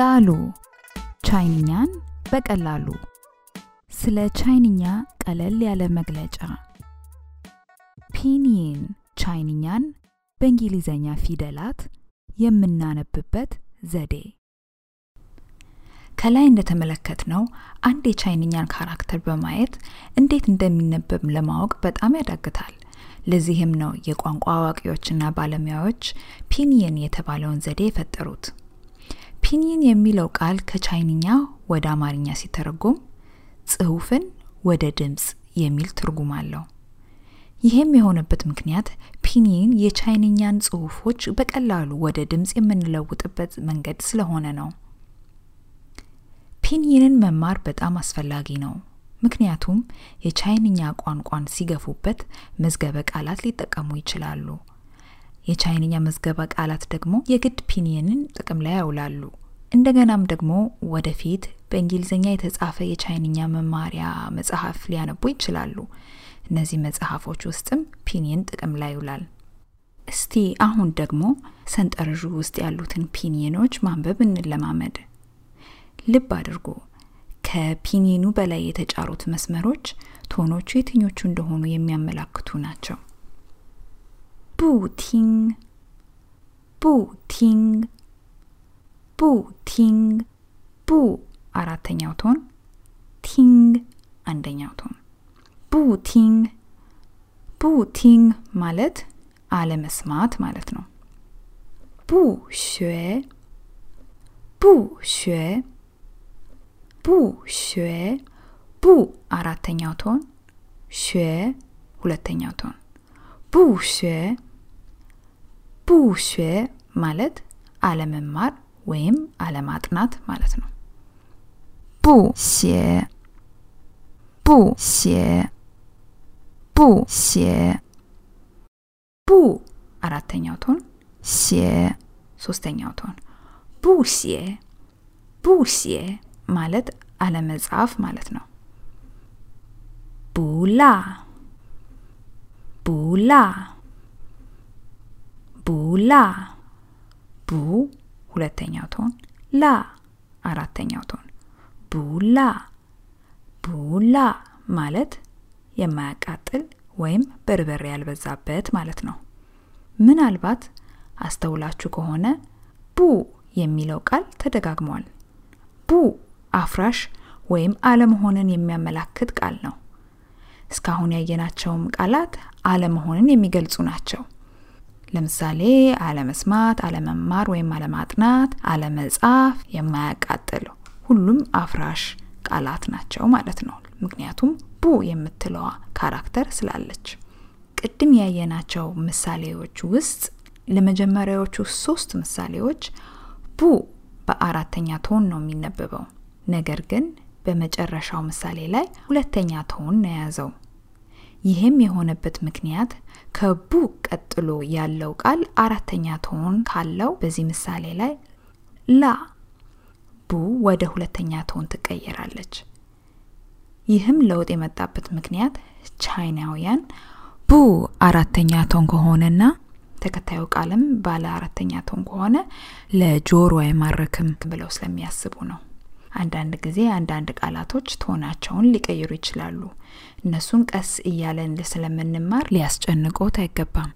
ዳሉ ቻይንኛን በቀላሉ ስለ ቻይንኛ ቀለል ያለ መግለጫ ፒኒን ቻይንኛን በእንግሊዘኛ ፊደላት የምናነብበት ዘዴ ከላይ እንደተመለከትነው አንድ የቻይንኛን ካራክተር በማየት እንዴት እንደሚነበብ ለማወቅ በጣም ያዳግታል ለዚህም ነው የቋንቋ አዋቂዎችና ባለሙያዎች ፒኒን የተባለውን ዘዴ የፈጠሩት ፒኒን የሚለው ቃል ከቻይንኛ ወደ አማርኛ ሲተረጎም ጽሑፍን ወደ ድምጽ የሚል ትርጉም አለው ይሄም የሆነበት ምክንያት ፒኒን የቻይንኛን ጽሑፎች በቀላሉ ወደ ድምጽ የምንለውጥበት መንገድ ስለሆነ ነው ፒኒንን መማር በጣም አስፈላጊ ነው ምክንያቱም የቻይንኛ ቋንቋን ሲገፉበት መዝገበ ቃላት ሊጠቀሙ ይችላሉ የቻይንኛ መዝገበ ቃላት ደግሞ የግድ ፒኒንን ጥቅም ላይ ያውላሉ እንደገናም ደግሞ ወደፊት በእንግሊዘኛ የተጻፈ የቻይንኛ መማሪያ መጽሐፍ ሊያነቡ ይችላሉ እነዚህ መጽሐፎች ውስጥም ፒኒን ጥቅም ላይ ይውላል እስቲ አሁን ደግሞ ሰንጠረዡ ውስጥ ያሉትን ፒኒኖች ማንበብ እንለማመድ ልብ አድርጉ ከፒኒኑ በላይ የተጫሩት መስመሮች ቶኖቹ የትኞቹ እንደሆኑ የሚያመላክቱ ናቸው ቡ ቲንግ ቡ አራተኛው ቶን ቲንግ አንደኛው ቶን ቡ ቲንግ ማለት አለመስማት ማለት ነው ቡ xuē ቡ አራተኛው ቶን xuē ሁለተኛው ቶን ቡ xuē ማለት አለመማር ወይም አለማጥናት ማለት ነው ቡ አራተኛው ቶን ሶስተኛው ቶን ቡ ማለት አለመጻፍ ማለት ነው ቡላ ቡ ሁለተኛው ቶን ላ አራተኛው ቶን ቡላ ማለት የማያቃጥል ወይም በርበሬ ያልበዛበት ማለት ነው ምናልባት አስተውላችሁ ከሆነ ቡ የሚለው ቃል ተደጋግሟል ቡ አፍራሽ ወይም አለመሆንን የሚያመላክት ቃል ነው እስካሁን ያየናቸውም ቃላት አለመሆንን የሚገልጹ ናቸው ለምሳሌ አለመስማት አለመማር ወይም አለማጥናት አለመጻፍ የማያቃጥል ሁሉም አፍራሽ ቃላት ናቸው ማለት ነው ምክንያቱም ቡ የምትለዋ ካራክተር ስላለች ቅድም ያየናቸው ምሳሌዎች ውስጥ ለመጀመሪያዎቹ 3 ምሳሌዎች ቡ በአራተኛ ቶን ነው የሚነበበው ነገር ግን በመጨረሻው ምሳሌ ላይ ሁለተኛ ቶን ነው ያዘው ይሄም የሆነበት ምክንያት ከቡ ቀጥሎ ያለው ቃል አራተኛ ቶን ካለው በዚህ ምሳሌ ላይ ላ ቡ ወደ ሁለተኛ ቶን ትቀየራለች ይህም ለውጥ የመጣበት ምክንያት ቻይናውያን ቡ አራተኛ ቶን ከሆነና ተከታዩ ቃልም ባለ አራተኛ ቶን ከሆነ ለጆሮ አይማረክም ብለው ስለሚያስቡ ነው አንዳንድ ጊዜ አንዳንድ ቃላቶች ቶናቸውን ሊቀይሩ ይችላሉ እነሱን ቀስ እያለን ስለምንማር ሊያስጨንቆት አይገባም